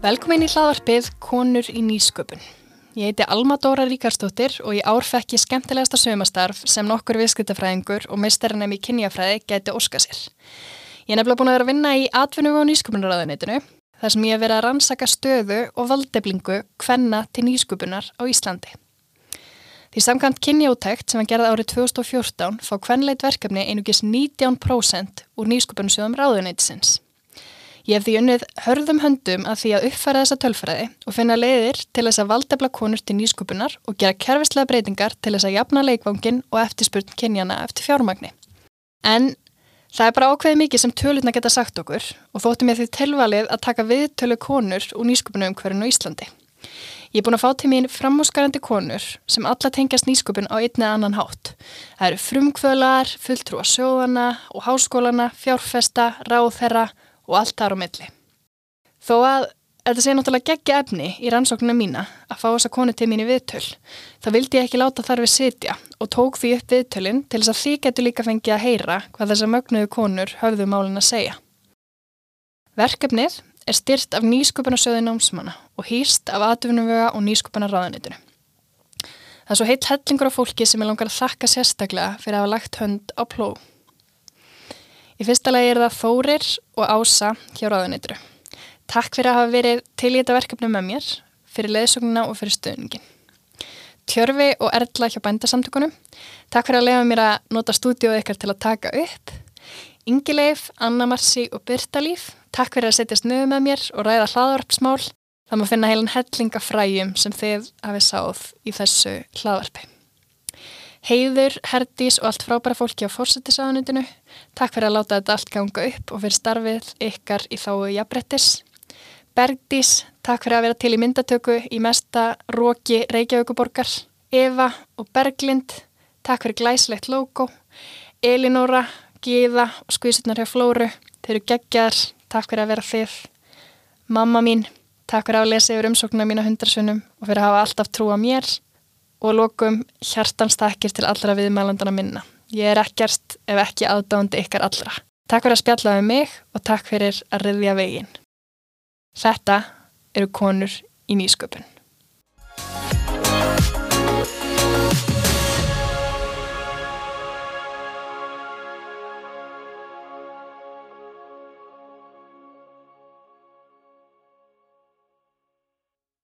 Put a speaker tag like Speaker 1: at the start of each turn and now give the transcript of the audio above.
Speaker 1: Velkomin í hlaðvarpið Konur í nýsköpun. Ég heiti Alma Dóra Ríkarsdóttir og í ár fekk ég skemmtilegasta saumastarf sem nokkur viðskiptafræðingur og meistarinn í kynjafræði gæti óskað sér. Ég er nefnilega búin að vera að vinna í atvinnu- og nýsköpunarráðuneytinu, þar sem ég hef verið að rannsaka stöðu og valdeflingu kvenna til nýsköpunar á Íslandi. Því samkvæmt kynjaúttekt sem var gerð árið 2014 fá kvenleit verkefni einungis 19% úr nýsköpunarsjóðum ráðuneytisins. Ég hef því unnið hörðum höndum að því að uppfæra þessa tölfræði og finna leiðir til þess að valdefla konur til nýsköpunar og gera kerfislega breytingar til þess að jafna leikvanginn og eftirspurn kynjana eftir fjármagni. En það er bara ákveðið mikið sem tölurnar geta sagt okkur og þótti mér því tilvalið að taka viðtölu konur úr nýsköpunarumhverfinu á Íslandi. Ég er búin að fá til mín framúrskarandi konur sem alla tengjast nýsköpun á einn eða annan hátt. Það eru frumkvöðlar, fulltrúar sjóðana og háskólana, fjárfesta, ráðherra og allt þar á milli. Þó að þetta sé náttúrulega geggja efni í rannsóknina mína að fá þessa konu til mín í viðtöl, þá vildi ég ekki láta þar við sitja og tók því upp viðtölin til þess að þið getur líka fengið að heyra hvað þessar mögnuðu konur höfðu málin að segja. Verkefnið er styrt af nýsköpunarsjóði námsmanna og hýst af atvinnuvega og nýsköpunarráðuneytinu. Það er svo heill hellingur af fólki sem ég langar að þakka sérstaklega fyrir að hafa lagt hönd á plóg. Í fyrsta lagi er það Þórir og Ása hjá ráðuneytinu. Takk fyrir að hafa verið til í þetta verkefni með mér, fyrir leiðsögnina og fyrir stuðningin. Tjörfi og Erla hjá Bændasamtökunum. Takk fyrir að leyfa mér að nota stúdíóið ykkar til að taka upp. Ingileif, Anna Marsi og Birta Líf. Takk fyrir að setjast niður með mér og ræða hlaðvarpsmál. Það má finna heilan helling af fræjum sem þið hafið sáð í þessu hlaðvarpi. Heiður, Herdís og allt frábæra fólki á forsætisráðuneytinu. Takk fyrir að láta þetta allt ganga upp og fyrir starfið ykkar í þágu jafnréttis. Bergdís, takk fyrir að vera til í myndatöku í mesta roki Reykjavíkurborgar. Eva og Berglind, takk fyrir glæsilegt logo. Elinóra, Gyða og skvísurnar hjá Flóru, þeir eru geggjar, takk fyrir að vera þið. Mamma mín, takk fyrir að lesa yfir umsóknina mína 100 sinnum og fyrir að hafa alltaf trú á mér. Og lokum hjartans takkir til allra viðmælandana minna. Ég er ekkert ef ekki aðdáandi ykkar allra. Takk fyrir að spjalla við mig og takk fyrir að ryðja veginn. Þetta eru konur í nýsköpun.